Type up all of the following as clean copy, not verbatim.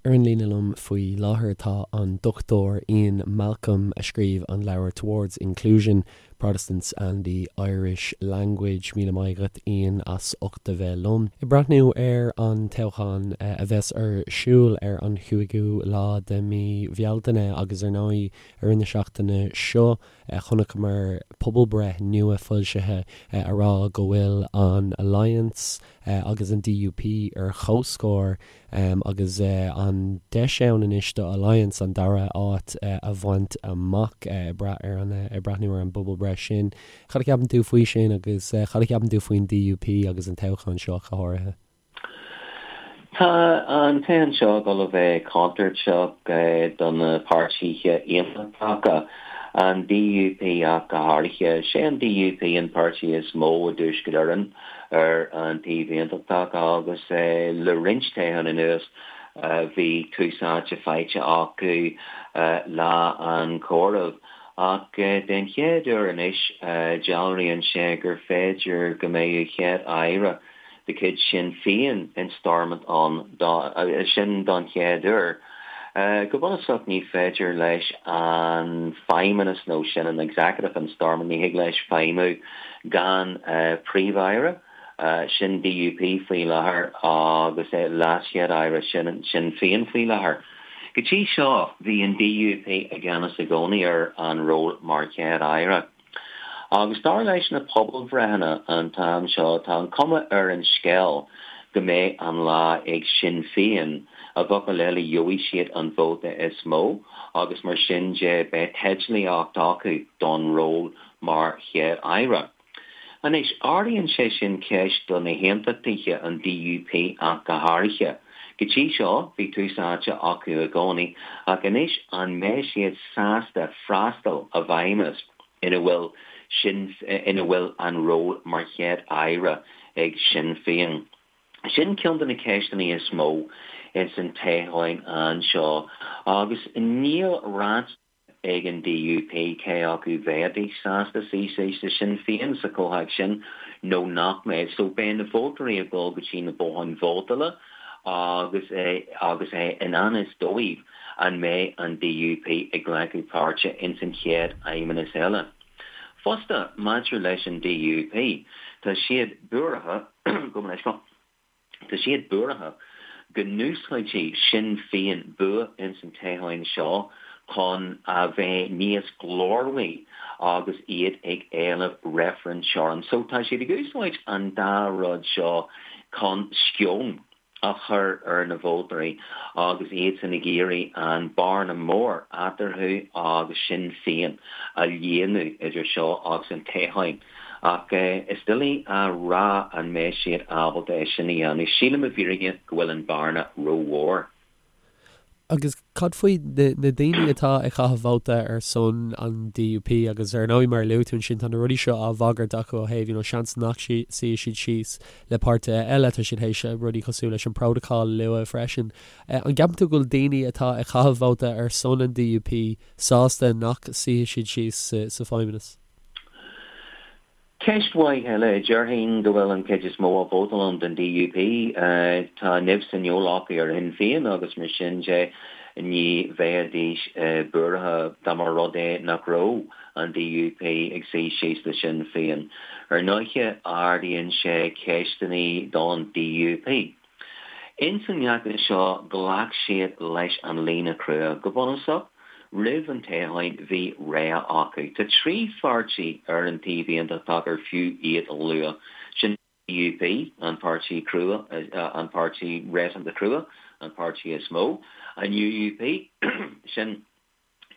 Ar an líne liom faoi láthair tá an Dr Ian Malcolm a scríobh an leabhar Towards Inclusion, Protestants and the Irish Language. Míle maith agat Ian as ucht a bheith liom. Ag breathnú ar an toghchán a bheas ar siúl ar an chúigiú lá de mhí Bhealtaine agus ar ndóigh i rith na seachtaine seo chonaiceamar pobalbhreith nua foilsithe a rá go bhfuil an Alliance agus an DUP ar chomhscór agus an deis ann anois do Alliance an dara háit a bhaint amach ag brath ar an ag breathnú ar an bpobalbhreith sin. Cad a cheapann tú faoi sin agus cad a cheapann tú faoin DUP agus an toghchán seo go háirithe? Tá an toghchán seo ag dul a bheith contúirteach do na páirtithe aontachtacha, an DUP ach go háirithe. Sé an DUP an páirtí is mó i dTuaisceart Éireann ar an taobh aontachtach agus le roinnt toghchán anuas bhí tús áite faighte acu lá an chomhairimh. Ach den chéad uair anois dealraíonn sé gur féidir go mbeadh Chéad-Aire de chuid Sinn Féin in Stormont ann, sin don chéad uair. Go bunúsach ní féidir leis an Feidhmeannas nó sin an Executive in Stormont, ní thig leis feidhmiú gan Príomh-Aire, sin DUP faoi láthair, agus LeasChéad-Aire, sin Sinn Féin faoi láthair. Go dtí seo bhí an DUP i gceannas i gcónaí ar an ról mar Chéad-Aire. Agus dar leis na pobalbhreitheanna an t-am seo, tá an cuma ar an scéal go mbeidh an lá ag Sinn Féin, i bhfocail eile gheobhaidh siad an vóta is mó agus mar sin de beidh teidlíocht acu don ról mar Chéad-Aire. Anois, ardaíonn sé sin ceist do na hAontachtaithe, an DUP ach go háirithe. Go dtí seo, bhí tús áite acu i gcónaí, ach anois an mbeidh siad sásta freastal i bhfeidhmeannas ina bhfuil sin ina bhfuil an ról mar Chéad Aire ag Sinn Féin? Sin ceann de na ceisteanna is mó ins an toghchán anseo agus níl ráite ag an DUP cé acu bheidís sásta suí síos le Sinn Féin sa chomhthéacs sin nó nach mbeidh. So beidh na vótóirí ag dul go dtí na botháin vótála agus é agus é i ngan fhios dóibh an mbeidh an DUP ag glacadh páirte ins an chéad fheidhmeannas eile. Fosta, maidir leis an DUP, tá siad buartha, gabh mo leithscéal, Tá siad buartha go n-úsáidfidh Sinn Féin bua ins an toghchán seo chun a bheith níos glórmhaí agus iad ag éileamh reifreann teorann. So tá siad ag úsáid an dá rud seo chun sceon a chur ar na vótóirí agus iadsan ag iarraidh an bearna mór eatarthu agus Sinn Féin a líonadh idir seo agus an toghchán. Ach is doiligh a rá an mbeidh siad ábalta é sin a dhéanamh. Sílim i bhfírinne go bhfuil an bhearna rómhór. Agus cad faoi na daoine atá ag caitheamh vóta ar son an DUP agus ar ndóigh mar a luaigh tú ansin tá na rudaí seo á bhagairt acu ó thaobh you know seans nach suífidh siad síos le páirtithe eile, tá siad théis rudaí cosúil leis an Protocol a lua freisin. An gceapann tú go bhfuil daoine atá ag caitheamh vóta ar son an DUP sásta nach suífidh siad síos sa Feidhmeannas? Ceist mhaith eile. Déarfainn go bhfuil an chuid is mó a vótálann don DUP, tá nimh sa fheoil acu ar Shinn Féin agus mar sin de ní bheidís buartha dá mba rud é nach raibh an DUP ag suí síos le Sinn Féin. Ar ndóiche ardaíonn sé ceisteanna don DUP. Ins an fheachtas seo ghlac siad leis an líne chrua. Go bunúsach, roimh an toghchán bhí rogha acu. Tá 3 pháirtí ar an taobh aontachtach ar fiú iad a lua. Sin DUP, an páirtí crua, an páirtí réasúnta crua, an páirtí is mó, an UUP, sin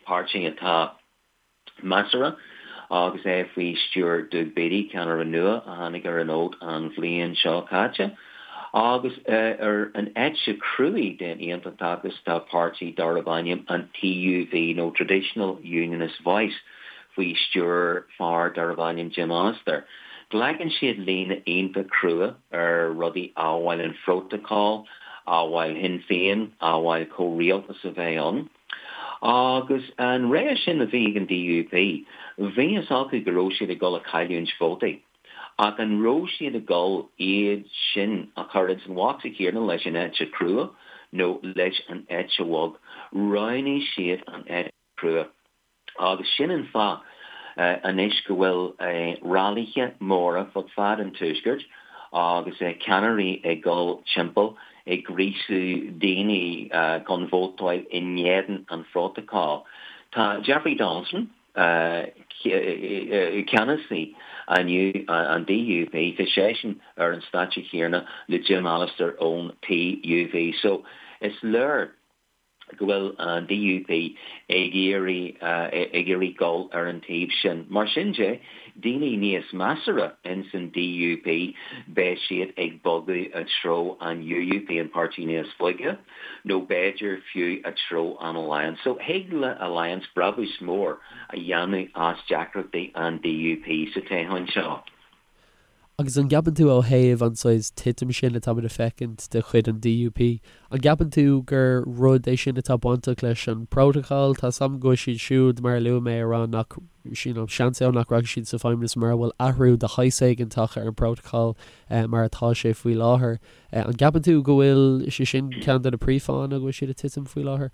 páirtí atá measartha agus é faoi stiúir Doug Beattie, ceannaire nua a tháinig ar an fhód an bhliain seo caite. Agus ar an eite chruaidh den aontachtachas tá páirtí darb ainm an TUV nó Traditional Unionist Voice faoi stiúir fear darb ainm Jim Allister. Glacann siad líne iontach crua ar rudaí amhail an Phrótacal, amhail Shinn Féin, amhail comhrialtas a bheith ann. Agus an rogha sin a bhí ag an DUP, bhí fhios acu go raibh siad ag dul a cailliúint vótaí. Ach an raibh siad ag dul iad sin a chur ins an bhocsa céanna leis an eite chrua? nó leis an eite bhog. Roghnaigh siad an eite chrua. Agus sin an fáth anois go bhfuil railithe móra fud fad an Tuaiscirt agus ceannairí ag dul timpeall ag gríosú daoine chun vótáil in éadan an Phrótacail. Tá Jeffrey Donaldson, ceannasaí an DUP, tá seisean ar an stáitse chéanna le Jim Allister ón TUV. So is léir go bhfuil an DUP ag iarraidh ag iarraidh dul ar an taobh sin. Mar sin de, daoine níos measartha ins an DUP, beidh siad ag bogadh i dtreo an UUP, an páirtí níos boige, nó b'fhéidir fiú i dtreo an Alliance. So thig le Alliance brabús mór a dhéanamh as deacrachtaí an DUP sa toghchán seo. Agus an gceapann tú ó thaobh an saghas titim sin atáimid a feicint de chuid an DUP, an gceapann tú gur rud é sin atá bainteach leis an bPrótacal? Tá 's agam go bhfuil siad siúd, mar a luaigh mé, ag rá nach, you know, seans ann nach rachaidh siad sa Feidhmeannas mura bhfuil athrú de shaghas éigin tagtha ar an bPrótacal mar atá sé faoi láthair. An gceapann tú go bhfuil sé sin ceann de na príomhfháthanna go bhfuil siad ag titim faoi láthair?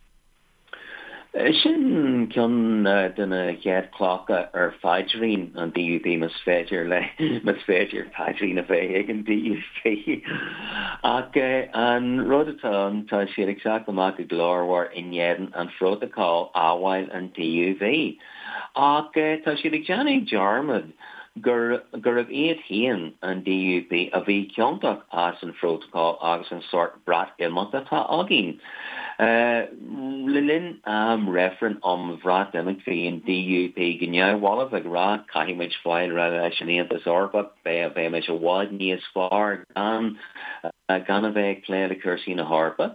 Sin ceann de na chéad clocha ar phaidrín an DUP, más féidir le, más féidir paidrín a bheith ag an DUP. Ach an rud atá ann, tá siad ag teacht amach go glórmhar in éadan an phrótacail, amhail an TUV. Ach tá siad ag déanamh dearmad gur gurbh iad féin, an DUP, a bhí ciontach as an phrótacal agus an sórt Breatimeacht atá againn. Le linn am reifreann um Bhreatimeacht bhí an DUP go neamhbhalbh ag rá caithfidh muid fáil réidh leis an Aontas Eorpach, beidh muid i bhfad níos fearr gan gan a bheith ag plé le cúrsaí na hEorpa.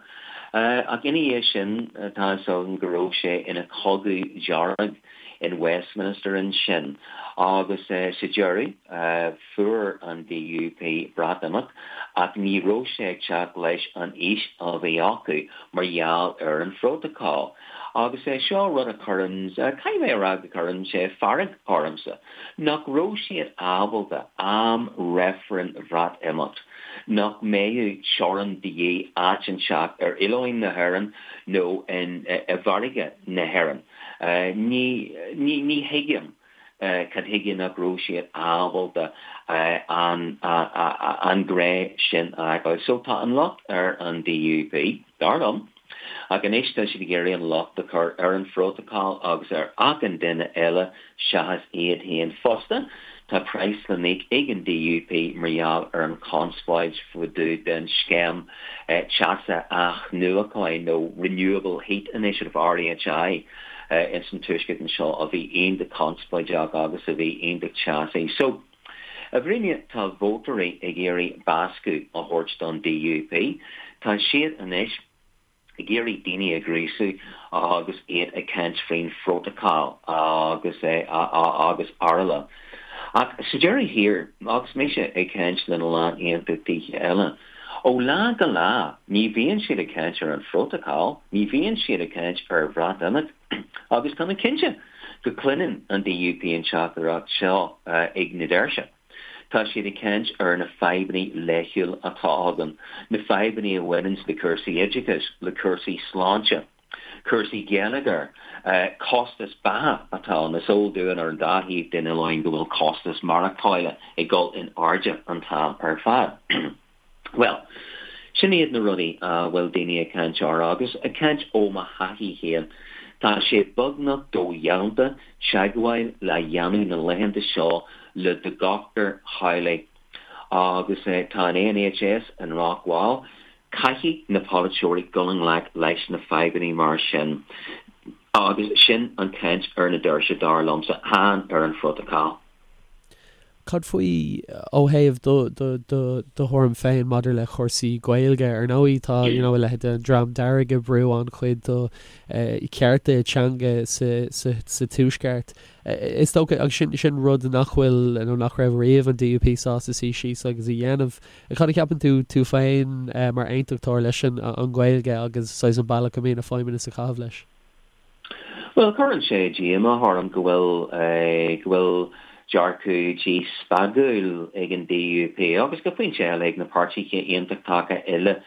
Ach ina dhiaidh sin tá 'fhios againn go raibh sé ina chogadh dearg in Westminster ansin agus sa deireadh fuair an DUP Breatimeacht ach ní raibh sé ag teacht leis an fhís a bhí acu mar gheall ar an phrótacal. Agus é seo rud a chuireann, caithfidh mé a rá go gcuireann sé fearg ormsa, nach raibh siad ábalta am reifreann Bhreatimeacht, nach mbeadh teorainn de dhíth áit inteacht ar oileáin na hÉireann nó i bhfarraige na hÉireann. Ní, ní, ní thuigim cad chuige nach raibh siad ábalta an, an grá sin a fheiceáil. So tá an locht ar an DUP, dar liom, ach anois tá siad ag iarraidh an locht a chur ar an phrótacal agus ar achan duine eile seachas iad féin. Fosta, tá praghas le n-íoc ag an DUP mar gheall ar an chonspóid fá dtaobh den scéim teasa athnuacháin nó Renewable Heat Initiative, RHI, ins an Tuaisceart anseo a bhí iontach conspóideach agus a bhí iontach teasaí. So, i bhfírinne, tá vótóirí ag iarraidh bascadh a thabhairt don DUP. Tá siad anois. ag iarraidh daoine a ghríosú agus iad ag caint faoin phrótacal agus agus araile. Ach sa deireadh thiar, agus mise ag caint lena lán aontachtaithe eile, ó lá go lá ní bhíonn siad ag caint ar an phrótacal, ní bhíonn siad ag caint ar Bhreatimeacht agus tá mé cinnte go gcluineann an DUP an teachtaireacht seo ag na doirse. Tá siad ag caint ar na fadhbanna laethúla atá againn, na fadhbanna a bhaineanns le cúrsaí oideachais, le cúrsaí sláinte, cúrsaí geilleagair, costas beatha atá ann. Is eol dúinn ar an dá thaobh den oileán go bhfuil costas maireachtála ag dul in airde an t-am ar fad. Bhuel, sin iad na rudaí a bhfuil daoine ag caint orthu agus ag caint ó mo thaithí féin, tá sé beagnach dodhéanta teagmháil le dhéanamh na laethanta seo le do dhochtúir theaghlaigh agus tá an NHS i ndrochbhail. Caithfidh na polaiteoirí dul i ngleic leis na fadhbanna mar sin agus sin an chaint ar na doirse dar liomsa, chan ar an phrótacal. Cad faoi ó thaobh do do do do thuairim féin maidir le cúrsaí Gaeilge? Ar ndóigh tá you know a leithéid den Dream Dearg ag brú an-chuid do chearta teanga sa sa sa Tuaisceart. Is dócha agus sin sin rud nach bhfuil nó nach raibh riamh an DUP sásta suí síos agus a dhéanamh. Cad a cheapann tú tú féin mar aontachtóir leis an an Ghaeilge agus saghas an bealach a mbíonn an Feidhmeannas ag caitheamh leis? Bhuel, cuireann sé díomá orm go bhfuil, go bhfuil dearcadh díspeagúil ag an DUP agus go pointe eile ag na páirtithe aontachtacha eile.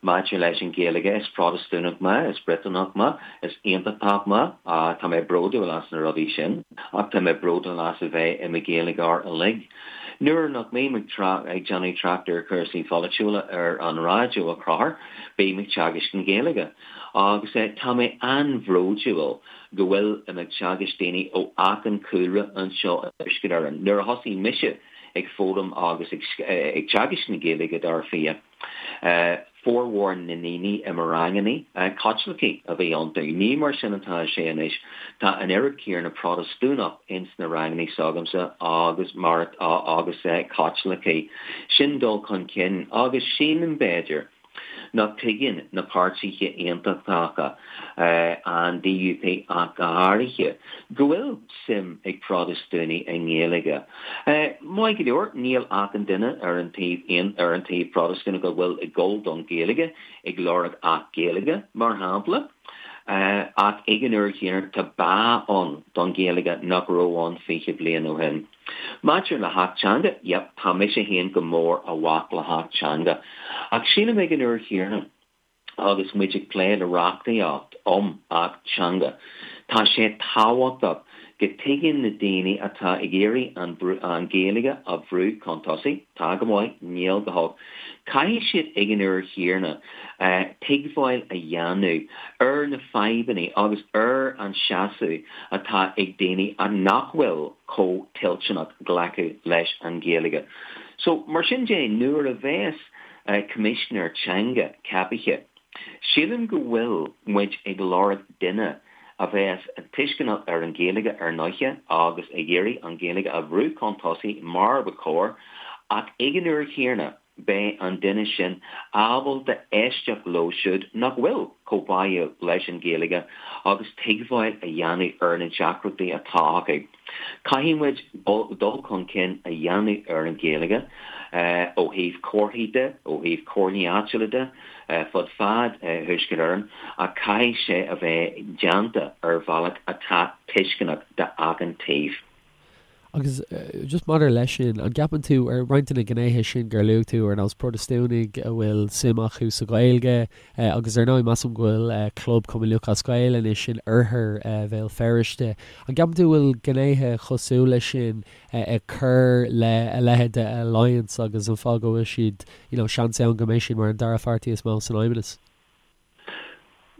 Maidir leis an Ghaeilge, is Protastúnach mé, is Briotanach mé, is Aontachtach mé, tá mé bródúil as na rudaí sin, ach tá mé bródúil as a bheith i mo Ghaeilgeoir uilig. Nuair nach mbím ag déanamh trácht ar chúrsaí pholaitiúla ar an raidió a Chonchúir, bím ag teagaisc na Gaeilge. Agus tá mé an-bhródúil go bhfuil im ag teagaisc daoine ó achan chúlra anseo i dTuaisceart Éireann. Nuair a thosaigh mise ag foghlaim agus ag teagaisc na Gaeilge, dar fia, Formhór na ndaoine i mo rangannaí, Caitlicigh a bhí iontu. Ní mar sin atá sé anois. Tá an oiread céanna Protastúnach ins na rangannaí s'agamsa agus mar agus Caitlicigh. Sin dul chun cinn agus sílim, b'fhéidir, nach dtuigeann na páirtithe aontachtacha, an DUP ach go háirithe, go bhfuil suim ag Protastúnaigh i nGaeilge. Maith go leor, níl achan duine ar an taobh ar an taobh Protastúnach a bhfuil ag gol don Ghaeilge ag lorg Acht Gaeilge, mar shampla, ach ag an uair chéanna tá bá ann don Ghaeilge nach raibh ann 20 bliain ó shin. Maidir le hAcht Teanga, yep, tá mise féin go mór i bhfách le hAcht Teanga. Ach sílim ag an uair chéanna, agus muid ag plé le reachtaíocht um Acht Teanga, tá sé tábhachtach go dtuigeann na daoine atá ag iarraidh an Ghaeilge a bhrú chun tosaigh, tá go maith, níl go holc, caithfidh siad ag an uair chéanna tuigbheáil a dhéanamh ar na fadhbanna agus ar an seasamh atá ag daoine nach bhfuil chomh toilteanach glacadh leis an Ghaeilge. So, mar sin de, nuair a bheas Coimisinéir Teanga ceapaithe. Sílim go bhfuil muid ag lorg duine a bheas tuisceanach ar an Ghaeilge ar ndóiche agus ag iarraidh an Ghaeilge a bhrú chun tosaigh mar ba chóir ach ag an uair chéanna beidh an duine sin ábalta éisteacht leo siúd nach bhfuil chomh báúil leis an Ghaeilge agus tuigbheáil a dhéanamh ar na deacrachtaí atá acu. Caithfidh muid dul chun cinn a dhéanamh ar an Ghaeilge ó thaobh comharthaí de, ó thaobh comhairlí áitiúla de, fud fad Thuaisceart Éireann, ach caithfidh sé a bheith déanta ar bhealach atá tuisceanach d'achan taobh. Agus just maidir leis sin, an gceapann tú, ar roinnt de na gnéithe sin gur luaigh tú, ar nós Protastúnaigh a bhfuil suim acu sa Ghaeilge, agus ar ndóigh measaim go bhfuil Club Chumann Lúthchleas Gael anois in oirthear Bhéal Feirste, an gceapann tú go bhfuil gnéithe cosúil leis sin ag cur le a leithéid de Alliance agus an fáth go bhfuil siad, you know, seans ann go mbeidh siad mar an dara pháirtí is mó san Fheidhmeannas?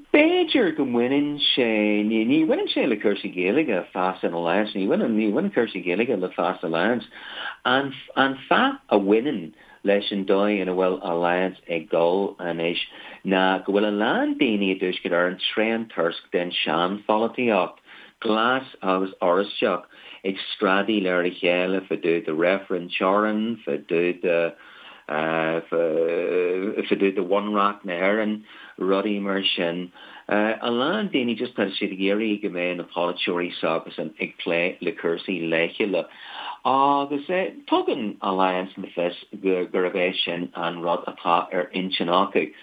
B'fhéidir go mbaineann sé, ní, ní bhaineann sé le cúrsaí Gaeilge, fás in Alliance, ní bhaineann, ní bhaineann cúrsaí Gaeilge le fás Alliance. An, an fáth a bhaineann leis an dóigh ina bhfuil Alliance ag dul anois ná go bhfuil a lán daoine i dTuaisceart Éireann tréan-tuirseach den sean-pholaitíocht, glas agus oráisteach ag screadaíl ar a chéile fá dtaobh de reifreann teorann, fá dtaobh de. fá dtaobh de Bhunreacht na hÉireann, rudaí mar sin. A lán daoine just tá siad ag iarraidh go mbeidh na polaiteoirí s'acusan ag plé le cúrsaí laethúla agus tugann Alliance le fios gurb é sin an rud atá ar intinn acu.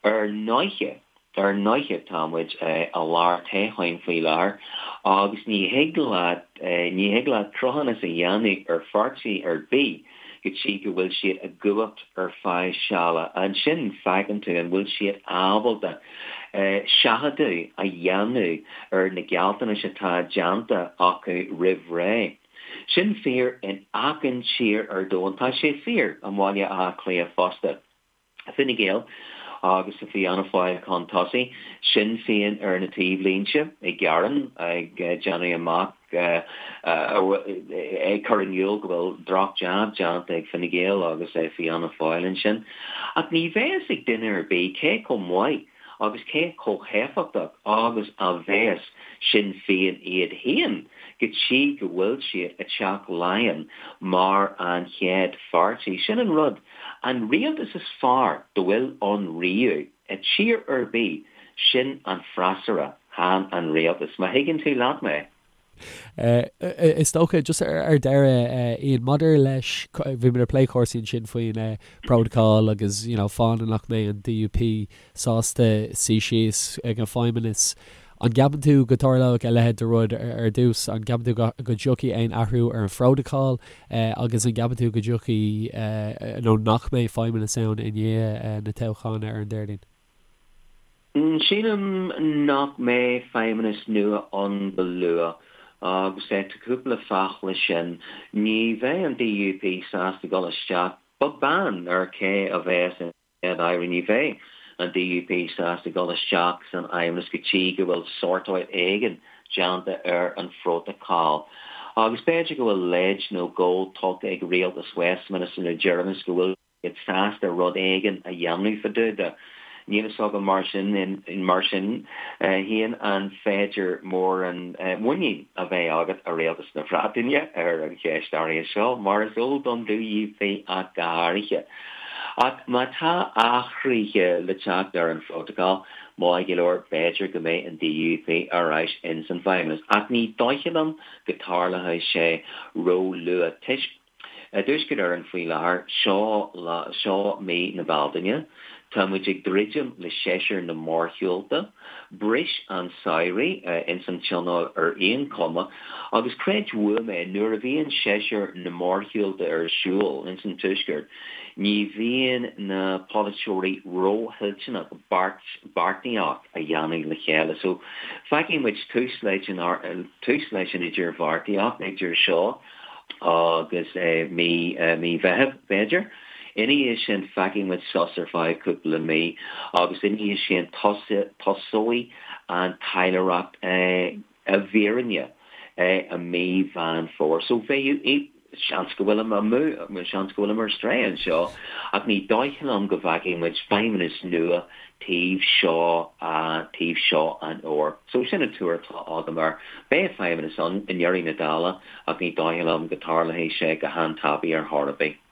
Ar ndóiche, Ar ndóiche tá muid i lár toghcháin faoi láthair agus ní thig leat, ní thig leat cruthúnas a dhéanamh ar pháirtí ar bith go dtí go bhfuil siad i gcumhacht ar feadh seala. Ansin feiceann tú an bhfuil siad ábalta seachadadh a dhéanamh ar na gealltanais atá déanta acu roimh ré. Sin fíor in achan tír ar domhan. Tá sé fíor i mBaile Átha Cliath fosta. Fine Gael agus Fianna Fáil chun tosaigh, Sinn Féin ar na taobhlínte ag gearán, ag déanamh amach, ag cur in iúl go bhfuil droch-jab déanta ag Fine Gael agus Fianna Fáil ansin. Ach ní bheas ag duine ar bith cé chomh maith agus cé chomh héifeachtach agus a bheas Sinn Féin iad féin go dtí go bhfuil siad i dTeach Laighean mar an chéad pháirtí. Sin an rud. An rialtas is fearr dá bhfuil ann riamh i tír ar bith, sin an freasúra, chan an rialtas. Má thuigeann tú leat mé. Is dócha, just ar deireadh, Ian, maidir leis, bhí muid ag plé cúrsaí ansin faoin bprótacal agus, you know, fáthanna nach mbeidh an DUP sásta suí síos ag an Feidhmeannas. An gceapann tú go dtarlóidh a leithéid de rud ar dtús? An gceapann tú go dtiocfaidh aon athrú ar an phrótacal agus an gceapann tú go dtiocfaidh nó nach mbeidh feidhmeannas ann i ndiaidh na toghcháin ar an Déardaoin? Sílim nach mbeidh feidhmeannas nua ann go luath agus tá cúpla fáth leis sin. Ní bheidh an DUP sásta dul isteach, beag beann ar cé a bheas ina Chéad-Aire, ní bheidh an DUP sásta dul isteach san fheidhmeannas go dtí go bhfuil sórtáil éigin déanta ar an phrótacal. Agus b'fhéidir go bhfuil leid nó dhó tugtha ag rialtas Westminster le deireanas go bhfuil siad sásta rud éigin a dhéanamh fá dtaobh de. Níl fhios agam mar sin mar sin féin an féidir mórán muinín a bheith agat i rialtas na Breataine ar an cheist áirithe seo, mar is eol don DUP ach go háirithe. Ach má tá athruithe le teacht ar an phrótacal, maith go leor, b'fhéidir go mbeidh an DUP ar ais ins an bhFeidhmeannas. Ach ní dóiche liom go dtarlóidh sé ró-luath toisc i dTuaisceart Éireann faoi láthair, seo lá, seo mí na Bealtaine, tá muid ag druidim le séasúr na mórshiúlta, bris an samhradh ins an Tionól ar aon chuma, agus creid uaim é, nuair a bhíonn séasúr na mórshiúlta ar siúl ins an Tuaisceart, ní bhíonn na polaiteoirí róthoilteanach beart, beartaíocht a dhéanamh le chéile. So, feicfidh muid tús leis an, tús leis an idirbheartaíocht idir seo agus mí mí Mheithimh, b'fhéidir. Ina dhiaidh sin, feicfidh muid sos ar feadh cúpla mí agus ina dhiaidh sin tosóidh an taidhleoireacht i bhfírinne i mí Mheán Fómhair. So bheadh seans go bhfuilim amú, seans go bhfuilim ar strae anseo, ach ní dóigh liom go bhfeicfidh muid feidhmeannas nua taobh seo, taobh seo an fhómhair. So sin an tuar atá agam air. Beidh feidhmeannas ann i ndeireadh na dála ach ní dóigh liom go dtarlóidh sé go han-tapaidh ar chor ar bith.